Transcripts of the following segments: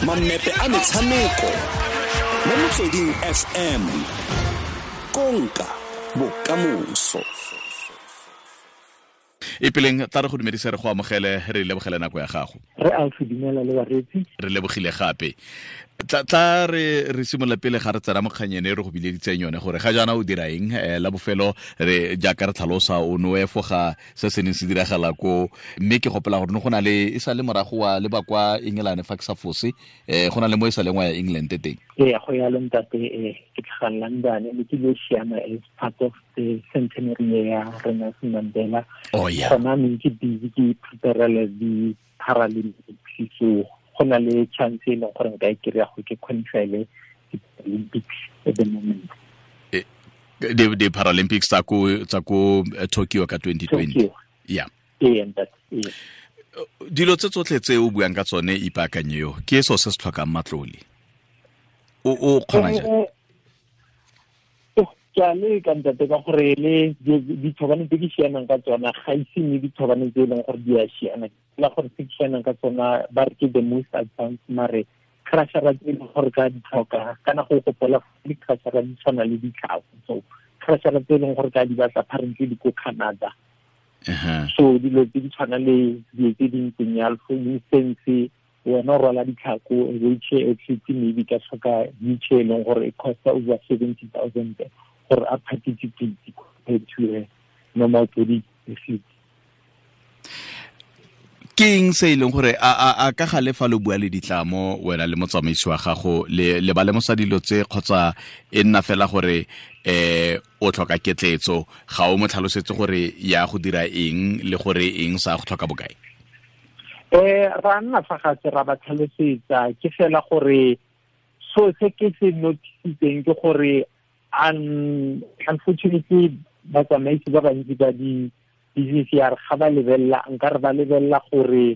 Mammepe a metshameko mo Motsweding FM. Konka bokamoso. Ipeleng, tla re go dumedise, re go amogele, re lebogele nako ya gago. Re a go dumela le bareetsi. Re lebogile gape. Tla re simolola pele ga re tsena mo kganyene e re go bileditseng yone, gore ga jaana o dira eng. La bofelo re jaaka re tlhalosa, o ne o efoga se se neng se diragala ko, mme ke gopola gore ne go na le e sa le morago wa leba kwa England, fa ke sa fose, go na le mo e sa leng wa ya England teng. Ee, go ya le ntate, ke tlhaga London, ne ke lo siama as part of the centenary ya Nelson Mandela. Oh, yeah. Gona ne ke busy ke prepare the Paralympics, so go na le chance e leng gore nka e kry-a go ke qualify le Olympics at the moment. The Paralympics tsa ko Tokyo ka 2020. Tokyo. Yeah. Ee, ntate, ee. Dilo tse tsotlhe tse o buang ka tsone, ipaakanye yo ke so se se tlhokang matlole, o kgona jang? Ke a leka, ntate, ka gore le dithobane tse ke sianang ka tsona ga ise mme dithobane tse e leng gore di a siana la gore tse ke sianang ka tsona ba re ke the most advanced, mare crushera tse e leng gore ka di tlhoka kana go gopola di-crushera di tshwana le ditlhako, so crushera tse e leng gore ka di batla apparently di ko Canada. So dilo tse di tshwana le dilo tse di ntseng yalo, for instance, wena o rwala ditlhako, wheelchair athlete maybe ka tlhoka wheelchair e leng gore e costa over 70,000 gore a participate compared to a normal body athlete. Ke eng se e leng gore a ka gale fa lo bua le ditlamo, wena le motsamaisi wa gago, le ba lemosa dilo tse, kgotsa e nna fela gore o tlhoka ketletso, ga o mo tlhalosetse gore ya go dira eng le gore eng sa go tlhoka bokae? Ra nna fa gatse ra ba tlhalosetsa. Ke fela gore so se ke se noticitseng ke gore unfortunately batsamaisi ba bantsi ba di business ya re ga ba lebelela, nka re ba lebelela gore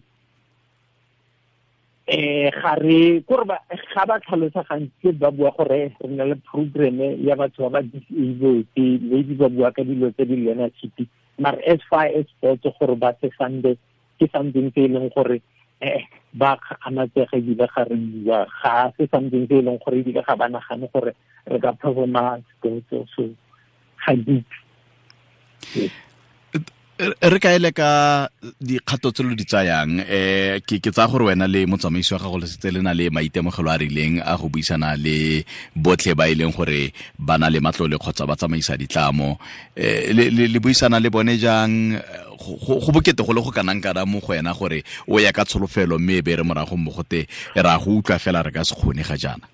ga re kore ba ga ba tlhalosa gantsi ba bua gore re na le program ya batho ba ba disabled, maybe ba bua ka dilo tse di learnership, mare as far as sports gore ba se funde ke something se e leng gore ba kgakgamatsega, ebile ga re bua ga se something se e leng gore ebile ga ba nagane gore re ka performa sports, so ga ditse. Re ka ele ka dikgato tse lo di tsayang, ke tsaya gore wena le motsamaisi wa gago le setse le na le maitemogelo a rileng a go buisana le botlhe ba e leng gore ba na le matlole kgotsa ba tsamaisa ditlamo. Le buisana le bone jang? Go bokete go le go kanang kana mo go wena gore o ya ka tsholofelo, mme e be re morago mo gote ra go utlwa fela, re ka se kgone ga jaana?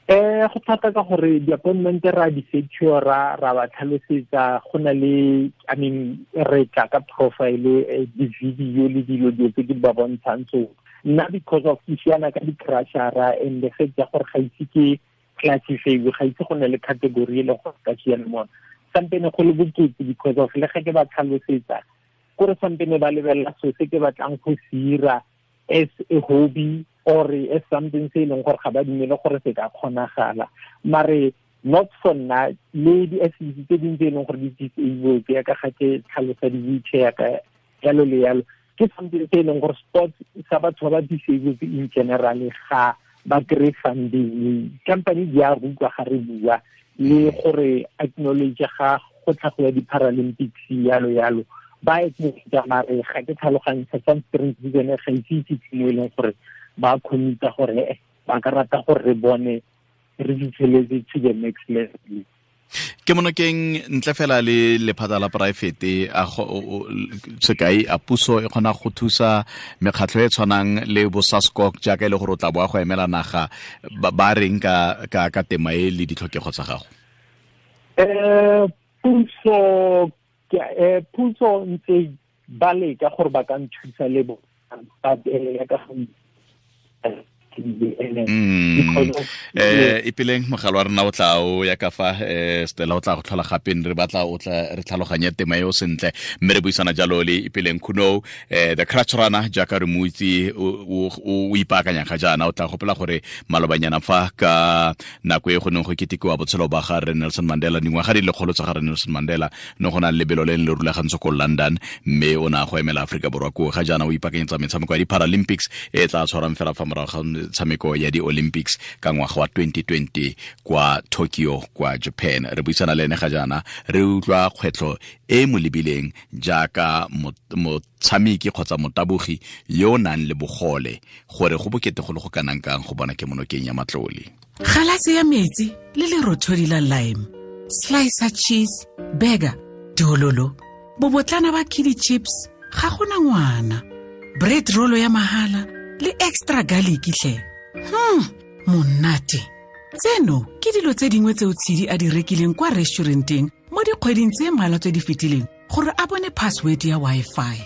Go thata ka gore di-appointment ra di secure, ra ba tlhalosetsa, go na le, I mean, re tla ka profile, di-video le dilo tse ke ba bontshang. So nna because of ke siana ka di-crushera and the fact ya gore ga ise ke classify, ga ise go na le category e leng gore ka siana mona, sampene go le bokete because of le ge ke ba tlhalosetsa kore sampene ba lebelela so se ke batlang go se ira as a hobby or as something se e leng gore ga ba dumele gore se ka kgonagala. Mare not for nna le di-athletes tse dingwe tse e leng gore di disabled, ya ka ga ke tlhalosa di-wheelchair ka yalo le yalo, ke something se e leng gore sports sa batho ba ba disabled in general ga ba kry funding. Company di a rutwa ga re bua le gore acknowledge ga go tlhagoya di-Paralympics, yalo yalo, ba acknowledge, mare ga ke tlhaloganye for some strange reason ga ise itse mo e leng gore ba commita gore ba ka rata gore re bone re fitlheletse to the next level. Ke monokeng ntle fela le lephata la poraefete, a sekai a puso e kgona go thusa mekgatlho e tshwanang le bo SASCOC, jaaka e le gore o tla boa go emela naga, ba reng ka tema e le ditlhokego tsa gago? Puso ntse ba leka gore ba ka nthusa le bo, but ya ka ene Because of Ipeleng mogala wa rena o tla o ya ka fa Stella o tla go tlhola gape re batla o tla re tlhaloganye tema eo sentle, mme re buisana jalo le Ipeleng Khunou, the crutch runner jaaka re mo itse o ipaakanya ga jaana. O tla gopola gore malobanyana fa ka nako e go neng go ketekiwa botshelo ba ga re Nelson Mandela, dingwaga di lekgolo tsa ga re Nelson Mandela, ne go na le lebelo le le rulagantswe ko London, mme o ne a go emela Aforika Borwa koo. Ga jaana o ipaakanyetsa metshameko ya di-Paralympics e tla tshwarang fela fa morago ga metshameko ya di-Olympics ka ngwaga wa 2020 kwa Tokyo kwa Japan. Re buisana le ene ga jaana, re utlwa kgwetlho e mo lebileng jaaka motshameki kgotsa motabogi yo o nang le bogole, gore go bokete go le go kanang kang go bona kemonokeng ya matlole. Galase ya metsi le lerothodi la lime, slicer cheese, burger, dololo, bobotlana ba kiddie chips, ga gona ngwana, bread roll ya mahala le extra garlic tlhe. Monate. Tseno ke dilo tse dingwe tseo Tshidi a di rekileng kwa restauranteng mo dikgweding tse mmalwa tse di fetileng gore a bone password ya Wi-Fi.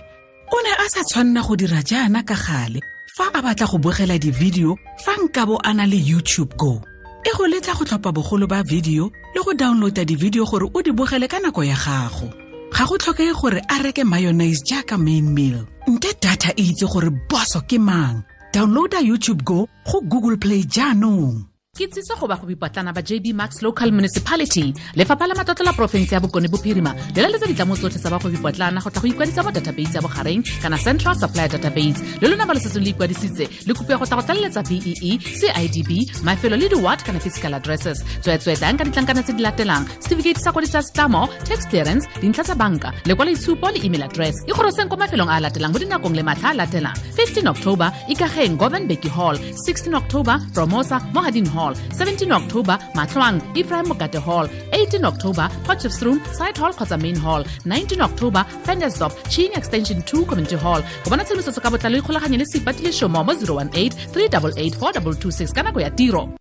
O ne a sa tshwanna go dira jaana ka gale fa a batla go bogela di-video fa nkabo a na le YouTube Go. E go letla go tlhopha bogolo ba video le go downloada di-video gore o di bogele ka nako ya gago. Ga go tlhokege gore a reke mayonnaise jaaka main meal. Nte data e itse gore boso ke mang. Downloada YouTube Go go Google Play jaanong. Ke tsiso go bagwebipotlana ba JB Marks Local Municipality. Lefapha la Matlotlo la Porofense ya Bokone Bophirima le laletsa ditlamo tsotlhe tsa bagwebipotlana go tla go ikwadisa mo database ya bogareng kana Central Supply Database. Le lona ba le setseng le ikwadisitse le kopiwa go tla go tlaleletsa BEE, CIDB, mafelo le di-ward kana physical addresses. Tsweetswee tlang ka ditlankana tse di latelang: certificate sa kwadiso ya setlamo, tax clearance, dintlha tsa banka, lekwaloitshupo le email address. Ikgoroseng kwa mafelong a a latelang mo dinakong le matlha a latelang: 15 October, Ikageng Govan Mbeki Hall; 16 October, Promosa Mohadin Hall; 17 October, Matlwang Ephraim Mokate Hall; 18 October, Potchefstroom Side Hall kgotsa Main Hall; 19 October, Ventersdorp Ching Extension 2 Community Hall. Go bona tshedimosetso ka botlalo ikgolaganye le Seipati Leshomo mo 018 388 4226 ka nako ya tiro.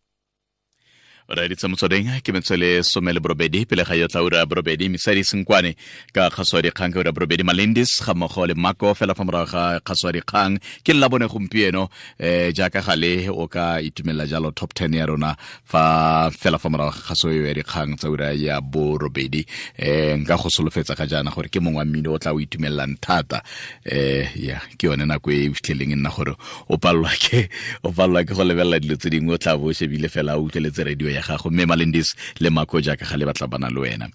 Re ditse motsweding ke metswele 18 pele ga yo tla ura 8, Mesadi Senkwane ka kgaso ya dikgang ka ura 8, Malindis ga mmogo le Mako fela fa morago ga kgaso ya dikgang. Ke la bone gompieno, jaaka gale o ka itumelela jalo top 10 ya rona fa fela fa morago ga kgaso ya dikgang tsa ura ya 8. Nka go solofetsa ga jaana gore ke mongwe wa mmino o tla o itumelelang thata. Ya ke yone nako e fitlheleng e nna gore o palelwa ke go lebelela dilo tse dingwe, o tla bo o shebile fela o utlweletse radio ya gago. Mme Malindis le Mako jaaka ga le batla bana le wena.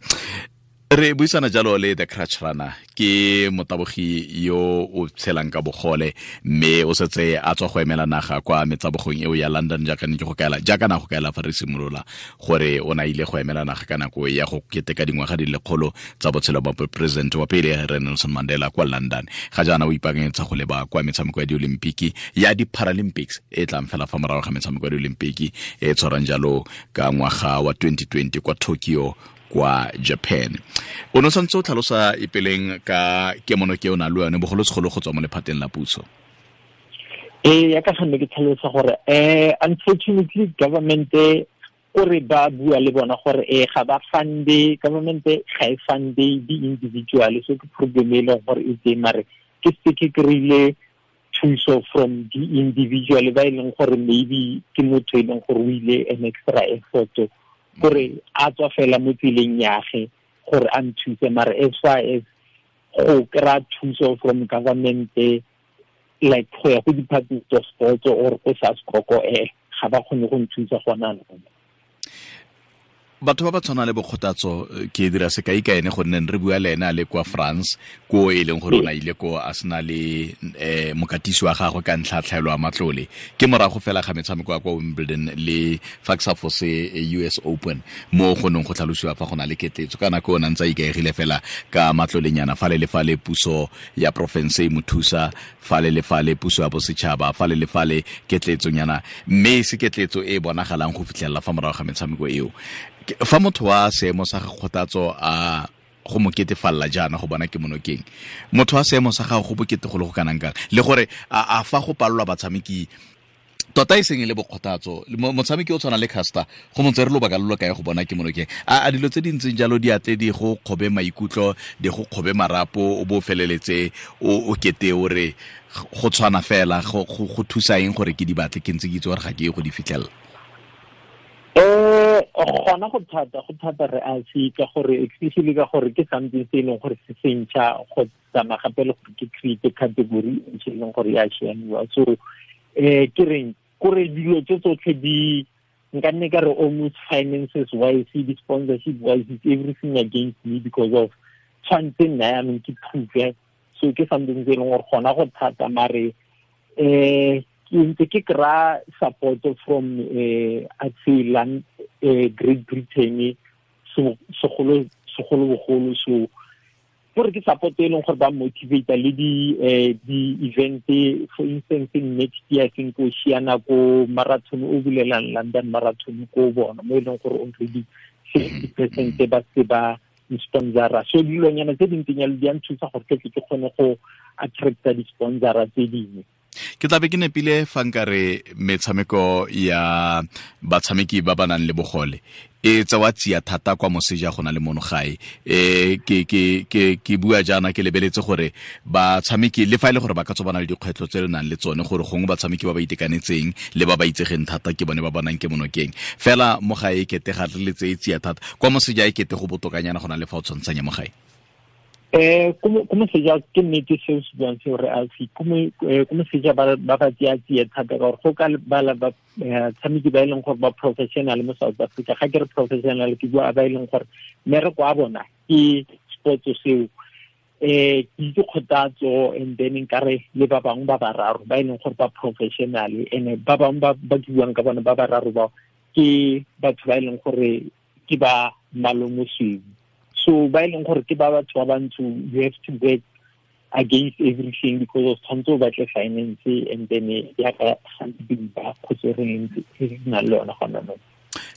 Re buisana jalo le the crutch runner, ke motabogi yo o tshelang ka bogole, mme o setse a tswa go emela naga kwa metsabogong eo ya London, jaaka ne ke go kaela, jaaka na go kaela fa re simolola gore o na ile go emela naga ka nako ya go keteka dingwaga di lekgolo tsa botshelo ba president wa pele re Nelson Mandela kwa London. Ga jaana o ipaakanyetsa go leba kwa metshameko ya di-Olimpiki ya di-Paralympics e tlang fela fa morago ga metshameko ya di-Olimpiki e tshwarang jalo ka ngwaga wa 2020 kwa Tokyo kwa Japan. O ne o santse o tlhalosa Ipeleng ka kemono ke o na le yone bogolosegolo go tswa mo lephateng la puso. Ya ka gonne ke tlhalosa gore unfortunately government kore ba bua le bona gore ga ba funde, government ga e funde di-individual, so ke problem e leng gore e teng, mare ke se ke kry-ile thuso from di-individual ba e leng gore maybe ke motho e leng gore o ile an extra effort gore a tswa fela mo tseleng yage gore a nthuse. Mare as far as go kry-a thuso from government, like go ya go department of sports or go SASCOC, ga ba kgone go nthusa gona anong. Batho ba ba tshwana le Bokgotatso, ke dira sekai ka ene gonne re bua le ene a le kwa France, ko e leng gore o na ile ko a sena le mokatisi wa gagwe ka ntlha tlhaelo ya matlole. Ke morago fela ga metshameko ya kwa Wimbledon le fa ke sa fose US Open mo go neng go tlhalosiwa fa go na le ketletso ka nako o ne ntse a ikaegile fela ka matlolenyana fale le fale, puso ya porofense e mo thusa fale le fale, puso ya bosetšhaba fale le fale, ketletsonyana, mme e se ketletso e bonagalang go fitlhelela fa morago ga metshameko eo. Fa motho wa seemo sa Kgothatso a go mo ketefalla jaana go bona kemonokeng, motho wa seemo sa gago go bokete go le go kanang kang, le gore a fa go palelwa batshameki Tota e seng e le bokgothatso motshameki o tshwana le Caster go montse re lobaka lo lo kae go bona ke monokeng a dilo tse di ntseng jalo di atle di go kgobe maikutlo di go kgobe marapo o bo feleletse o kete o re go tshwana fela go thusa eng gore ke di batle ke ntse ke itse gore ga ke ye go di fitlhelela? Gona go thata re a se ka gore especially ka gore ke something se e leng gore se sentšha go tsamaya gape le gore ke create category e ntšha e leng gore ya siamiwa. So ke reng kore dilo tse tsotlhe di nka nne ka re almost finances wise, di sponsorship wise, it's everything against me because of tshwanetse nna yaanong ke prove. So ke something se e leng gore gona go thata mare ke ntse ke kry-a support from Atseland, Great Britain segolobogolo. So gore ke support e leng gore ba motivate le di event, for instance next year I think o siana ko marathon o bulelang London Marathon ko bona mo e leng gore already 60% ba se ba sponsora. So dilonyana tse dintseng jalo di a nthusa gore ke tle ke kgone go attracta di-sponsora tse dingwe. Ke tlabe ke nepile fa nkare metshameko ya batshameki ba ba nang le bogole e tsewa tsia thata kwa moseja go na le mono gae. Ke bua jaana ke lebeletse gore batshameki le fa e le gore ba ka tswa ba na le dikgwetlho tse le nang le tsone gore gongwe batshameki ba ba itekanetseng le ba ba itsegeng thata ke bone ba bonang ke monokeng fela mo gae e kete ga re le tseye tsia thata kwa moseja e kete go botokanyana go na le fa o tshwantshanya mo gae. Ko moseja ke nnete seo se buang seo re Alfie, ko moseja ba ba tseya tsie thata ka gore go ka bala batshameki ba e leng gore ba professional mo South Africa. Ga ke re professional ke bua ba e leng gore mmereko wa bona ke sports seo. Ke itse Kgothatso and then nkare le ba bangwe ba bararo ba e leng gore ba professional, and ba bangwe ba ke buang ka bona ba bararo bao ke batho ba e leng gore ke ba malomosweu. So ba e leng gore ke ba batho ba bantsho, you have to work against everything because of tshwanetse o batle finance and then ya ka gantsi ba kgotse re ntse re na le yona gona mo.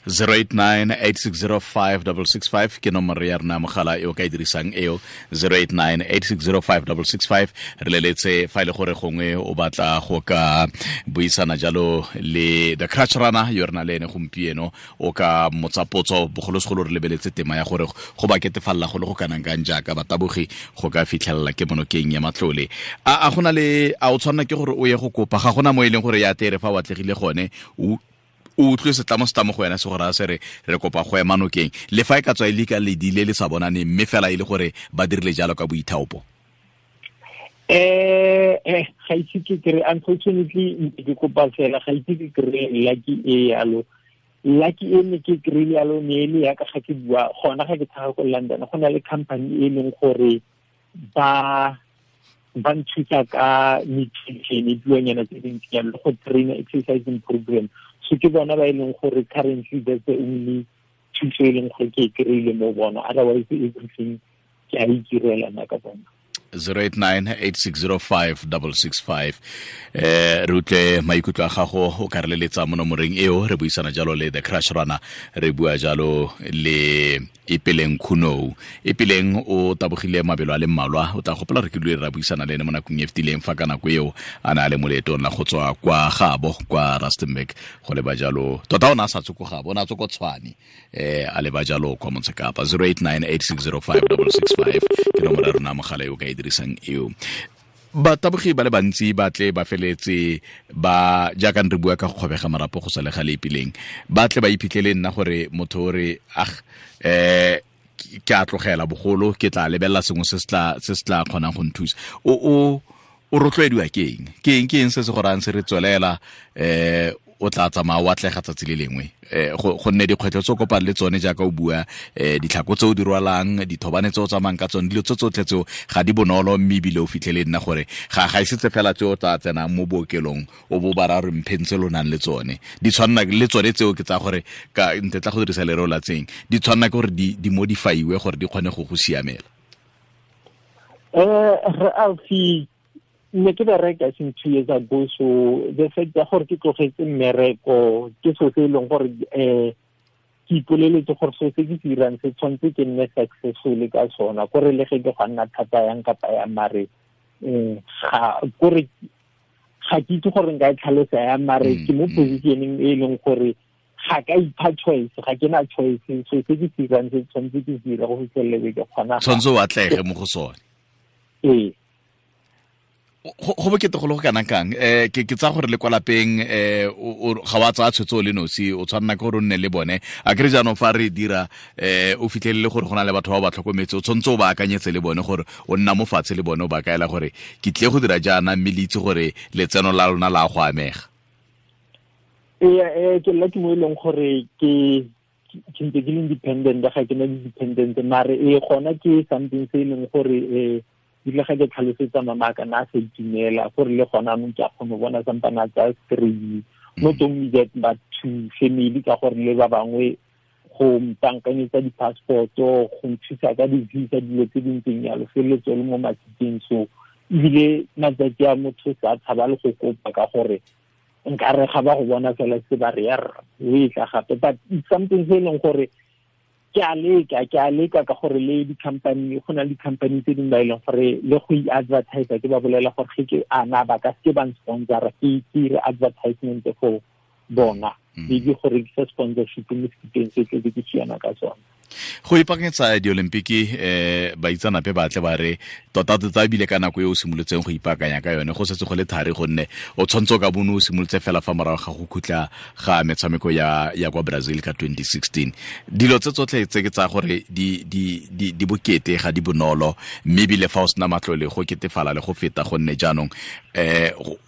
089-860-5665 ke nomoro ya rona mogala e o ka e dirisang eo, 089-860-5665. Re leletse fa e le gore gongwe o batla go ka buisana jalo le The Crutch Runner yo re na le ene gompieno, o ka motsa potso bogolosegolo re lebeletse tema ya gore go ba ketefalela go le go kanang kang jaaka batabogi go ka fitlhelela ke monokeng ya matlole. A gona le a o tshwanela ke gore o ye go kopa, ga gona mo e leng gore ya tere fa o atlegile gone o utlwe setlamo setlamo go wena se gore a se re kopa go ema nokeng le fa e ka tswa e le ka ledile le sa bonane mme fela e le gore ba dirile jalo ka boithaopo? Ga ise ke kry, unfortunately ke kopa fela ga ise ke kry lucky e yalo. Lucky e ne ke kry-ile yalo ne e le yaka ga ke bua gona ga ke tlhaga ko London, go na le company e leng gore ba nthusa ka nutrition dilonyana tse dintsi jalo le go trainer exercising program. So ke bona ba e leng gore currently that's the only thuso e leng gore ke e kry-ile mo bona, otherwise everything ke a itirela nna ka bona. 089-860-5665. Re utlwe maikutlo a gago o ka re leletsa mo nomoreng eo. Re buisana jalo le The Crush Runner, re bua jalo le Ipeleng Khunou. Ipeleng o tabogile mabelo a le mmalwa, o tla gopola re ke dule ra buisana le ene mo nakong e fetileng fa ka nako eo a na le mo leetong la go tswa kwa gabo kwa Rustenburg go leba jalo, tota o ne a sa tswe ko gabo, o ne a tswe ko Tshwane, a leba jalo kwa Motsekapa. 089-860-5665 ke nomoro ya rona mogala eo ka e dirisang eo. Batabogi ba le bantsi ba tle ba feletse ba jaaka re bua ka go kgobega marapo go sa le gale Ipeleng, ba tle ba iphitlhele nna gore motho o re ke a tlogela bogolo ke tla lebelela sengwe se se tla kgonang go nthusa. O rotloediwa ke eng? Ke eng se se go rayang se re tswelela o tla tsamaya o atlega tsatsi le lengwe, gonne dikgwetlho tse o kopang le tsone jaaka o bua, ditlhako tse o di rwalang, dithobane tse o tsamayang ka tsone, dilo tse tsotlhe tseo ga di bonolo, mme ebile o fitlhele nna gore ga isetse fela tse o tla tsenang mo bookelong o bo ba ra re mpheng tse lo nang le tsone, di tshwanna le tsone tseo ke tsa gore ka nte tla go dirisa lereo la tseng, di tshwanna ke gore di modifyiwe gore di kgone go go siamela. Re Alfie, ne ke bereka since 2 years ago, so the fact ya gore ke tlogetse mmereko ke so se e leng gore ke ipoleletse gore so se ke se dirang se tshwanetse ke nne successful ka sona, kore le ge ke go nna thata yang kapa yang mare ga kore Ga ke itse gore nka e tlhalosa yang, mare ke mo positioneng e leng gore ga ka ipha choice, ga ke na choice. So se ke se dirang se tshwanetse ke se dire go fitlhelele ke kgona. Tshwanetse o atlege mo go sone. Ee. Go bokete go le go kana kang? Ke tsaya gore le kwa lapeng ga wa tsaya tshwetso le nosi, o tshwanela ke gore o nne le bone. A kere jaanong fa re dira o fitlhelele gore go na le batho ba ba tlhokometse, o tshwanetse o ba akanyetse le bone gore o nna mo fatshe le bone, o ba kaela gore ke tle go dira jaana, mme le itse gore letseno la lona la go amega. Ee, ke nna ke mo e leng gore ke ntse ke le independent, ga ke na di-dependent, mare e gona ke something se e leng gore ebile ga ke tlhalosetsa mama ka na sa itumela gore le gona anong ke a kgone go bona sampana tsa strain, not only that but to family, ka gore le ba bangwe go mpankanyetsa di-passport-o, go nthusa ka di-visa, dilo tse di ntseng jalo, feleletse le mo matsatsing. So ebile matsatsi a motho sa tshaba le go kopa ka gore nkare ga ba go bona fela se ba re ya rra o e tla gape. But it's something se e leng gore ke a leka ka gore le di-company, go na le di-company tse dingwe ba e leng gore le go i-advertise, ke ba bolela gore ge ke ana ba ka seke ba nsponsora, ke dire advertisement for bona, maybe go rekisa sponsorship mo sekipeng se tle ke siana ka sone. Go ipaakanyetsa diolimpiki, baitsanape ba tle ba re tota tota ebile ka nako e o simolotseng go ipaakanya ka yone go setse go le thari, gonne o tshwanetse o ka bone o simolotse fela fa morago ga go khutla ga metshameko ya kwa Brazil ka 2016. Dilo tse tsotlhe tse ke tsa gore di bokete, ga di bonolo, mme ebile fa o sena matlole go ketefala le go feta, gonne jaanong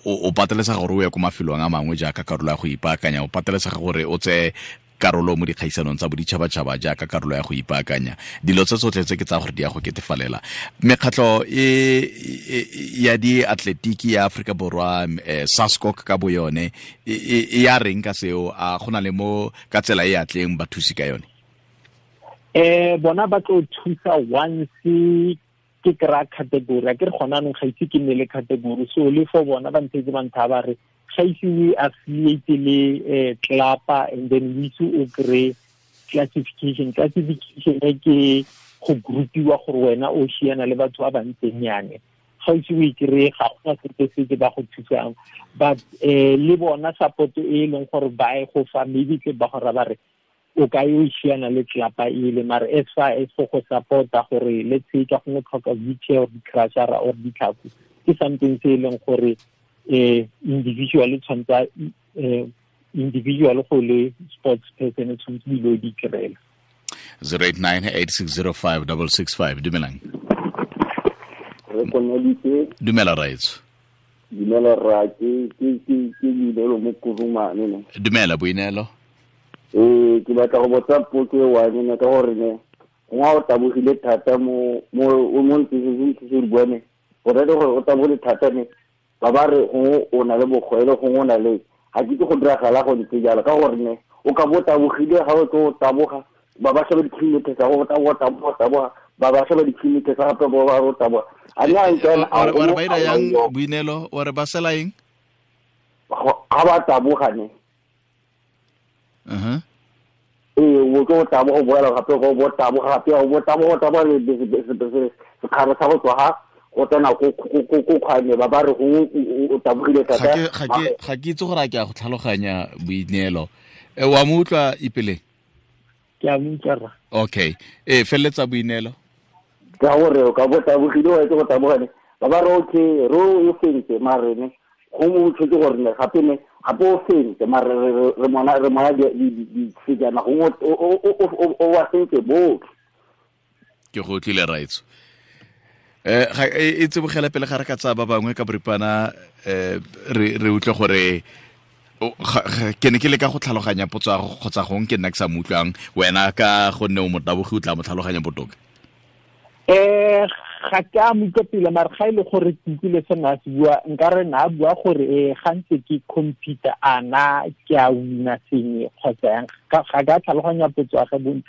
o patelesega gore o ye ko mafelong a mangwe jaaka karolo ya go ipaakanya, o patelesega gore o tseye karolo mo dikgaisanong tsa boditšhabatšhaba jaaka karolo ya go ipaakanya. Dilo tse tsotlhe tse ke tsa gore di ya go ketefalela. Mekgatlho ya diatletiki ya Aforika Borwa, SASCOC ka bo yone, e ya reng ka seo? A go na le mo ka tsela e atleng ba thusi ka yone? Bona ba tlo thusa once ke kry-a category. A ke re gona anong ga ise ke nne le category, so le for bona ba ntshetse ba ntha ba re ga ise o affiliate le club-a, and then o ise o kry classification. Classification e ke go groupiwa gore wena o siana le batho ba ba ntseng yane. Ga ise o e kry-e, ga gona sepe se ba go thusang. But le bona support e leng gore ba e go fa, maybe tle ba go ra ba re o ka yo siana le club-a ele, mare as far as for go support-a gore let's say ka gongwe tlhoka wheelchair or di-crusher or ditlhako, ke something se e leng gore individual tshwanetse individual go le sports person tshwanetse dilo di kry-ela. 089 8605 665. Dumelang. Re koneditse. Dumela raetso. Dumela rra, ke Boineelo mo Kurumane ne. Dumela Boineelo. Ke batla go botsa potso e one ne, ka gore ne gongwe o tabogile thata mo mo ntse se bua ne, go raya gore o tabogile thata ne, ba ba re gongwe o na le bogwele, gongwe o na le, ga ke itse go diragala go ntse jalo, ka gore ne o ka bo tabogile ga o tlo o taboga, ba ba sheba di-kilometer tsa go taboga, taboga, taboga, ba ba sheba di-kilometer tsa gape ba ba re o taboga. A nna a ntse a- Wa re ba ira yang Boineelo? Wa re ba sela eng? Ga ba taboga ne. Ee, o tlo taboga, o boela gape, o bo taboga gape, o bo taboga, taboga le sekgara sa go tswa ga go tsena ko kgwane, ba ba re gongwe o tabogile thata. Ga ke itse gore a ke a go tlhaloganya Boineelo. Wa mo utlwa Ipeleng? Ke a mo utlwa rra. Okay. Feleletsa Boineelo. Ka gore o ka bo tabogile, wa itse go taboga ne, ba ba re okay, re o fentse, mare ne gongwe o tshwetse gore ne gape ne gape o fentse, mare re mona disejana, gongwe o wa fentse botlhe. Ke go utlwile raetso. Ga e tsebogela pele ga re ka tsaya ba bangwe ka boripana, re utlwe gore ke ne ke leka go tlhaloganya potso ya gago, kgotsa gongwe ke nna ke sa mo utlwang wena, ka gonne o motabogi o tla mo tlhaloganya botoka. Ga ke a mo utlwa pele, mare ga e le gore ke utlwile se na se bua, nka re na bua gore ga ntse ke computer a na ke a wina sengwe kgotsa yang, ga ke a tlhaloganya potso ya gage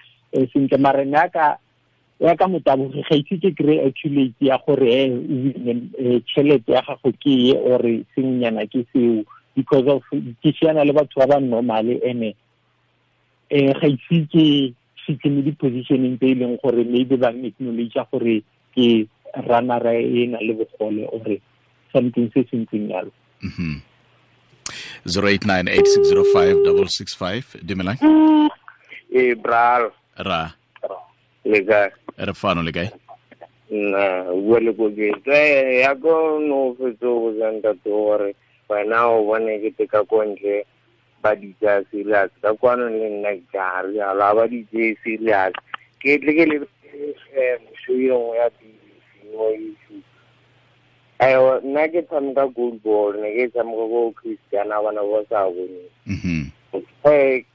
sentle, mare ne ya ka motabogi ga ise ke kry-e accurate ya gore o wine tšhelete ya gago ke e or sengwenyana ke seo, because of ke siana le batho ba ba normal, ene ga ise ke fitlhe mo di-positioneng tse e leng gore maybe ba acknowledge gore ke runner e na le bogole or something se se ntseng jalo. 089 8605 665. Dumelang. E bral. Ra. Le kae? Re fano, le kae? Nna bua le koketso ya ko no fetso go ntate gore wena o bone ke teka ko ntle ba di tsaya serious, ka kwano le nna ke a rialo a ba di tseye serious. Ke tle ke le show e nngwe ya BBC mo YouTube. Ayo, nna ke tshameka goal ball, ne ke tshameka ko Christiana, bana ba sa bone.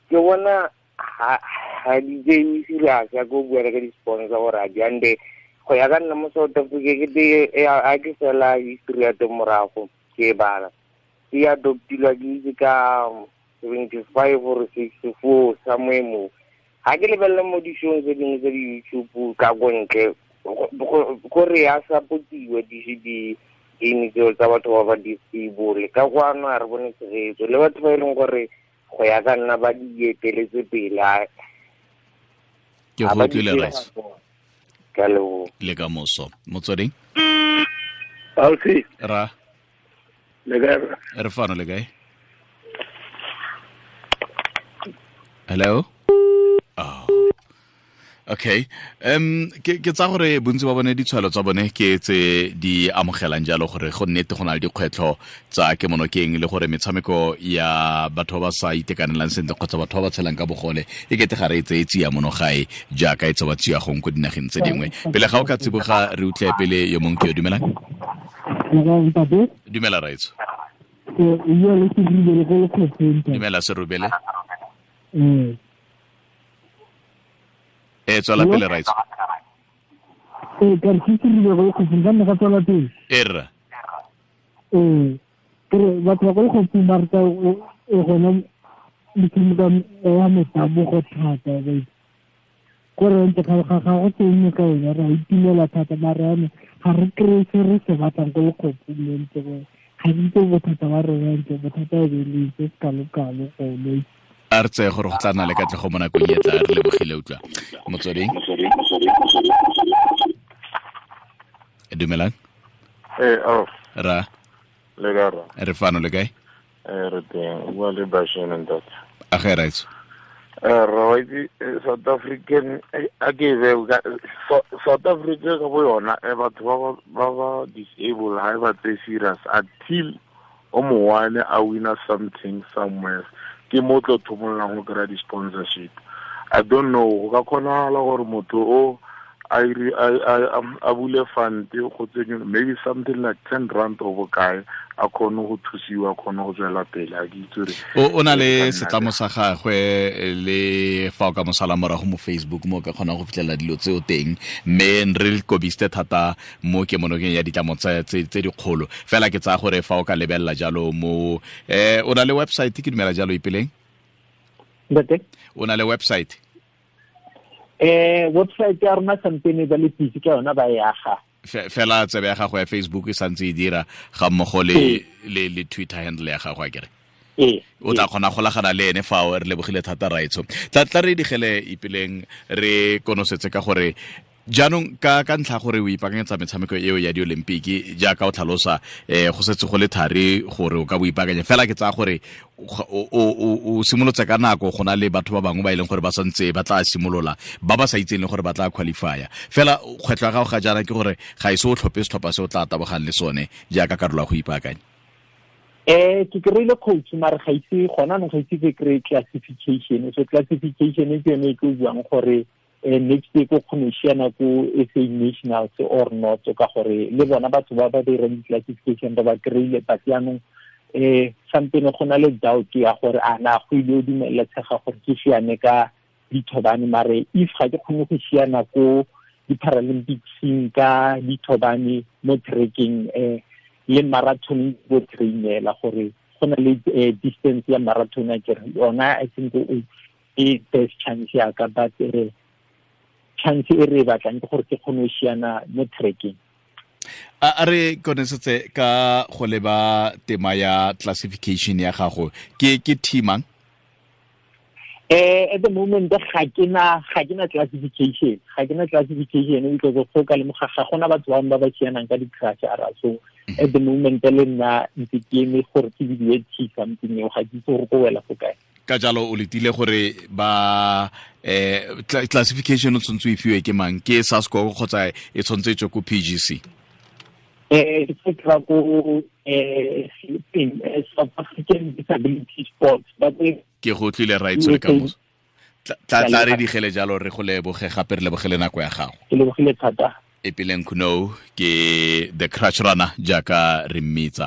Ke bona ha di tseye serious ya ko bua ka di-sponsor gore a di ande go ya ka nna mo South Africa. Ke te a ke fela history ya teng morago ke e bala, e adoptilwa ke itse ka 75 or 64 somewhere mo. Ga ke lebelela mo di-showng tse dingwe tsa di-YouTube ka ko ntle, gore ya supportiwa di-game tseo tsa batho ba ba disable. Ka kwano a re bone tshegetso le batho ba e leng gore go ya ka nna ba di eteletse pele. Ke go utlwile, rice. Ka leboga. Le ka moso. Motsweding. Alfi. Ra. Le kae? Re fano, le kae? Hello. Oh. Okay. Ke tsa gore bontsi ba bone ditshwalo tsa bone ke tse di amogelang jalo gore go nnete go na le dikgwetlho tsa kemonokeng le gore metshameko ya batho ba ba sa itekanelang sentle kgotsa batho ba ba tshelang ka bogole e kete ga re e tseye tsia mono gae jaaka e tsewa tsia gong ko dinageng tse dingwe. Pele ga o ka tsiboga, re utlwe pele yo mongwe ke yo. Dumelang. Dumela, raitso. Dumela, Serubele. E tswela pele, raitso. Ee, ka re ke rile go lekgophong ka nne ka tswela pele. E rra. Ee, kere batho ba ko lekgophong ba rata e gona metshameko ya metabogo thata ba itse. Kore ntse ga go teng ka yone re a itumela thata, mare yanong ga re kry-e se re se batlang ko lekgophong le ntse gore ga ke itse bothata ba rona ntse bothata e be le se se kalo-kalo gone. A re tseye gore go tla nna le katlego mo nakong e tla. Re lebogile. Utlwa motsweding. Dumelang. Ee, oh. Ra. Le kae, ra? Re fano, le kae? Ee, re teng. O bua le Bashane, ntate. A ge, raitso. Ra wa itse, South African a ke e beo South Africa ka bo yona, batho ba disable ha e ba tseye serious until o mo one a winner something somewhere, ke mo tlo thomollang go kry-a di-sponsorship. I don't know go ka kgonagala gore motho o a bule fund go tsenye maybe something like R10 or bokae, a kgone go thusiwa, a kgone go tswela pele. A ke itse gore O na le setlamo sa gagwe le fa o ka mosala morago mo Facebook mo o ka kgonang go fitlhelela dilo tseo teng, mme re kobiste thata mo kemonokeng ya ditlamo tse dikgolo fela. Ke tsaya gore fa o ka lebelela jalo mo o na le website, ke dumela jalo, Ipeleng? Ntate. O na le website? Website ya rona sampene ba le busy ka yona, ba e aga. Fela tsebe ya gago ya Facebook e santse e dira ga mmogo le Twitter handle ya gago, a kere? Ee. O tla kgona golagana le ene fao. Re lebogile thata, raetsho. Tla re digele, Ipeleng, re konosetse ka gore jaanong ka ntlha gore o ipaakanyetsa metshameko eo ya di-Olympic jaaka o tlhalosa, go setse go le thari gore o ka bo ipaakanya. Fela ke tsaya gore o simolotse ka nako go na le batho ba bangwe ba e leng gore ba santse ba tla simolola, ba ba sa itseng le gore ba tla qualifya. Fela kgwetlho ya gago ga jaana ke gore ga ise o tlhophe setlhopha se o tla tabogang le sone jaaka karolo ya go ipaakanya. Ke kry-ile coach, mare ga ise gona anong ga ise ke kry classification. So classification ke yone e ke o buang gore next year ko kgone go siana ko SA Nationals or not, ka gore le bona batho ba ba dirang di-classification ba ba kry-ile, but yaanong sampene go na le doubt ya gore a na go ile o dumeletsega gore ke siane ka dithobane. Mare if ga ke kgone go siana ko di-Paralympicseng ka dithobane mo trackeng le marathon, bo trainela gore go na le distance ya marathon a kere yona, I think e best chance ya ka, but chance e re e batlang ke gore ke kgone go siana mo trackeng. A re konesetse ka go leba tema ya classification ya gago, ke teamang? At the moment ga ke na classification, ga ke na classification because go ka lemoga ga gona batho bangwe ba ba sianang ka di-crutch ara, so At the moment le nna ntse ke eme gore ke bidiwe t something eo, ga ke itse gore ko wela fo kae. Ka jalo o letile gore ba classification o tshwanetse o e fiwe ke mang, ke SASCO kgotsa e tshwanetse e tswe ko PGC? Ke tla ko South African Disability Sports. Ke go tlile right le kamoso. Tla re digele jalo, re go leboge gape, re lebogele nako ya gago. Ke lebogile thata. Ipeleng Khunou ke the Crutch Runner jaaka re mmitsa.